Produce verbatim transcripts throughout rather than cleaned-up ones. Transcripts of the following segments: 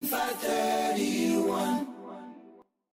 five thirty-one.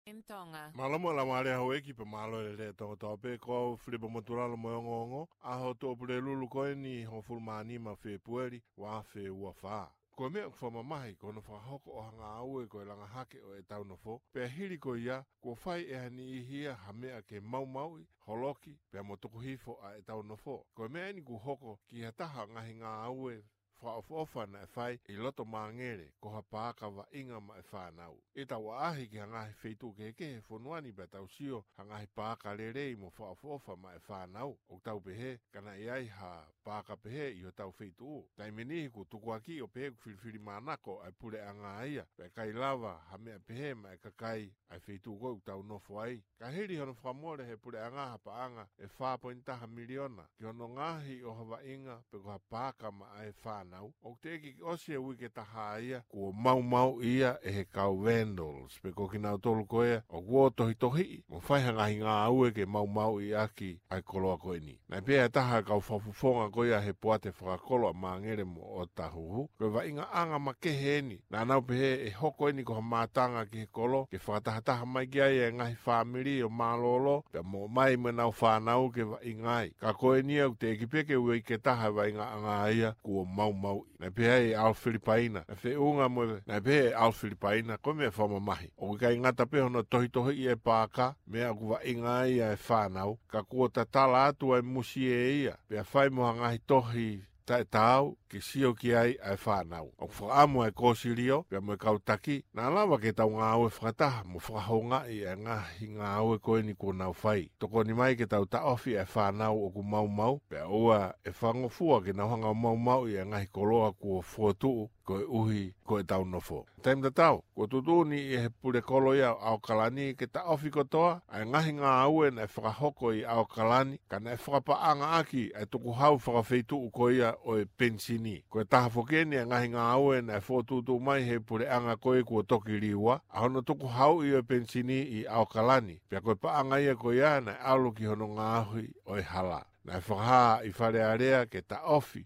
M Tonga. Mālō mo e laumālie houʻeiki pea mālō e lelei ʻa Tonga kotoa pē, ko au Filipa Motulalo mo e ongoongo, ʻaho Tuʻapulelulu ko eni hongofulu mā nima Fēpueli, ua afe ua fā. Ko e meʻa ʻoku fakamamahi, ko hono fakahoko ʻo ha ngāue ko e langa hake ʻo ʻetau nofo, pea hili ko ia, kuo fai ʻe ha niʻihi ia ha meʻa ke maumauʻi, holoki, pea mo tuku hifo ʻa ʻetau nofo. Ko e meʻa eni kuo hoko ki ha taha ngaahi ngāue fakaʻofoʻofa naʻe fai ʻi loto Māngele, ko ha paaka vaʻinga maʻa e fānau. ʻI heʻetau ʻaʻahi ki ha ngaahi feituʻu kehekehe he fonua ni pea tau sio ha ngaahi paaka lelei mo fakaʻofoʻofa maʻa e fānau, ʻoku tau pehē, ka naʻe ʻi ai ha paaka pehē ʻi hotau feituʻu. Taimi ʻe niʻihi kuo tukuakiʻi ʻo pehē ʻoku filifilimānako ʻa e puleʻanga ia, pea ʻikai lava ha meʻa pehē maʻa e kakai ʻa e feituʻu ko ē ʻoku tau nofo ai. Ka hili hono fakamole ʻe he puleʻanga ha paʻanga ʻe fā poini taha miliona ki hono ngaohi ʻo ha vaʻinga pe ko ha paaka maʻa e fānau, ʻoku teʻeki ke ʻosi e uike taha ia kuo maumauʻi ia ʻe he kau vandals, pe ko kinautolu ko ia ʻoku ō tohitohiʻi mo fai ha ngaahi ngāue ke maumauʻi ʻaki ʻa e koloa ko eni. Naʻe pehē ʻe ha taha ʻo e kau fakafofonga ko ia he poate fakakolo ʻa Māngele mo ʻOtahuhu, ko e vaʻingaʻanga makehe eni. Naʻa nau pehē ʻe hoko eni ko ha mātanga ki he kolo, ke fakatahataha mai ki ai e ngaahi fāmili ʻo mālōlō, pea mo ʻomai mo ʻenau fānau ke vaʻinga ai. Ka ko eni ia ʻoku teʻeki pē ke uike taha e vaʻingaʻanga ia kuo maumauʻi. Naʻe pehē ʻe ʻAlo Filipaina, naʻe feʻunga mo e, naʻe pehē ʻe ʻAlo Filipaina, ko e meʻa fakamamahi, ʻoku ʻikai ngata pē hono tohitohiʻi e paaka, meʻa ʻoku vaʻinga ai ʻa e fānau, ka kuo tatala atu ʻa e musie ia, pea fai mo ha ngaahi tohi taʻetaau ke sio ki ai ʻa e fānau. ʻOku fakaʻamu ʻa e kōsilio pea mo e kau taki, naʻa lava ke tau ngāue fakataha mo fakahoungaʻi ʻa e ngaahi ngāue ko eni kuo nau fai. Tokoni mai ke tau taʻofi ʻa e fānau ʻoku maumau, pea ʻoua ʻe fakangofua ke nau hanga ʻo maumauʻi ʻa e ngaahi koloa kuo fokotuʻu koeʻuhi ko ʻetau nofo. Taimi tatau, kuo tuʻutuʻuni ʻe he pulekolo ia ʻo ʻAokalani ke taʻofi kotoa ʻa e ngaahi ngāue naʻe fakahoko ʻi ʻAokalani, ka naʻe fakapaʻangaʻaki ʻa e tukuhau fakafeituʻu ko ia ʻo e penisini. Ko e taha foki eni ʻa e ngaahi ngāue naʻe fokotuʻutuʻu mai ʻe he puleʻanga ko ē kuo toki liua, ʻa hono tukuhauʻi ʻo e penisini ʻi ʻAokalani, pea ko e paʻanga ia ko ia naʻe ʻalu ki hono ngaohi ʻo e hala. Naʻe fakahā ʻi Fale Alea ke taʻofi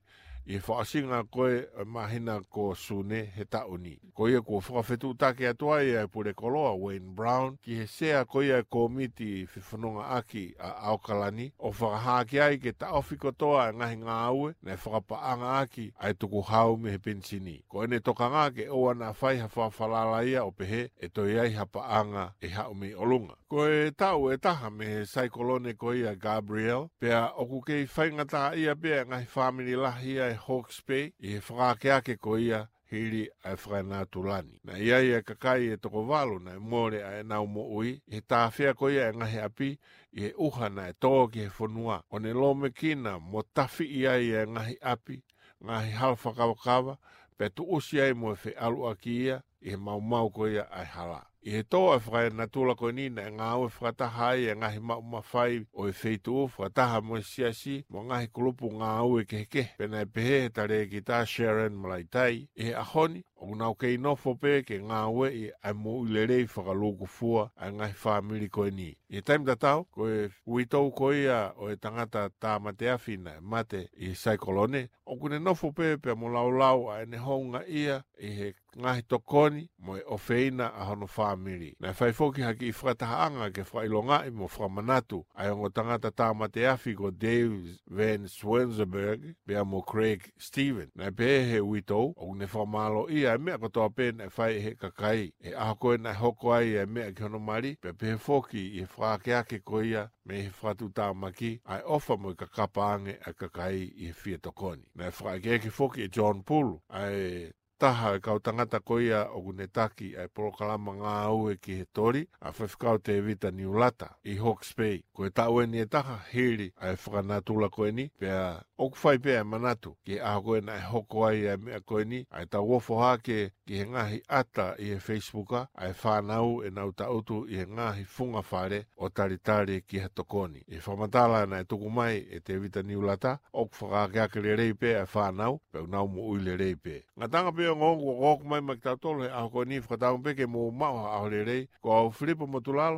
ʻi he fakaʻosinga ko ē ʻo e māhina ko Sune he taʻu ni. Ko ia kuo fakafetuʻutaki atu ai ʻa e pulekolo ʻa Wayne Brown ki he sea ko ia e kōmiti fefonongaʻaki ʻa ʻAokalani, ʻo fakahā ki ai ke taʻofi kotoa e ngaahi ngāue naʻe fakapaʻangaʻaki ʻa e tukuhau mei he penisini. Ko ʻene tokanga ke ʻoua naʻa fai ha fakafalala ia ʻo pehē ʻe toe ʻi ai ha paʻanga ʻe haʻu mei ʻolunga. Ko e taʻu ʻe taha mei he saikolone ko ia Gabrielle, pea ʻoku kei faingataʻaʻia pē ʻa e ngaahi fāmili lahi ia ʻi Hawke's Bay ʻi he fakaakeake ko ia hili ʻa e fakanatula ni. Naʻe ʻi ai ʻa e kakai ʻe toko valu naʻe mole ʻa ʻenau moʻui ʻi he tāfea ko ia ʻa e ngaahi ʻapi ʻi he ʻuha naʻe tō ki he fonua, ʻo ne lōmekina mo tafiʻi ai ʻa e ngaahi ʻapi, ngaahi hala fakakavakava, pea tuʻusi ai mo e feʻaluʻaki ia ʻi he maumau ko ia ʻa e hala. ʻI he tō ʻa e fakanatula ko eni naʻe ngāue fakataha ai ʻa e ngaahi maʻu mafai ʻo e feituʻu fakataha mo e siasi mo e ngaahi kulupu ngāue kehekehe. Pea naʻe pehē ʻe he talēkita Sharon Malaitai, ʻi he ʻaho ni, ʻoku nau kei nofo pē ke ngāueʻi ʻa e moʻui lelei fakalūkufua ʻa e ngaahi fāmili ko eni. ʻI he taimi tatau, ko e uitou ko ia ʻo e tangata tāmateafi naʻe mate ʻi he saikolone, ʻoku ne nofo pē pea mo laulau ʻa ʻene houngaʻia ʻi he ngaahi tokoni mo e ʻofeina ʻa hono fāmili. Naʻe fai foki ha kiʻi fakatahaʻanga ke fakaʻilongaʻi mo fakamanatu ʻa e ongo tangata tāmateafi ko Dave Van Swinsenberg pea mo Craig Stephens. Naʻe pehē ʻe he uitou, ʻoku ne fakamālōʻia ʻa e meʻa kotoa pē naʻe fai ʻe he kakai ʻi he ʻaho ko ē naʻe hoko ai ʻa e meʻa ki hono mali, pea pehē foki ʻi he fakaakeake ko ia mei he fakatuʻutāmaki, ʻa e ʻofa mo e kakapa ange ʻa e kakai ʻi he fie tokoni. Naʻe fakaʻekeʻeke foki ʻe John Pulu, ʻa e taha ʻo e kau tangata ko ia ʻoku ne taki ʻa e polokalama ngāue ki he toli, ʻa Faifekau Tēvita Niulata ʻi Hawke's Bay. Ko e taʻu eni ʻe taha hili ʻa e fakanatula ko eni, pea ʻoku fai pē ʻa e manatu ki he ʻaho ko ē naʻe hoko ai ʻa e meʻa ko eni, ʻa ʻetau ofo hake ki he ngaahi ʻata ʻi he Facebook, ʻa e fānau ʻenau tangutu ʻi he ngaahi funga fale ʻo talitali ki ha tokoni. ʻI he fakamatala naʻe tuku mai ʻe Tēvita Niulata, ʻoku fakaakeake lelei pē ʻa e fānau, pea ʻoku nau moʻui lelei pē. Ngataʻanga pē ongoongo kuo ʻoku mai maʻa kitautolu he ʻaho ko eni, fakatauange pē ke mou maʻu ha ʻaho lelei. Ko au Filipa Motulalo,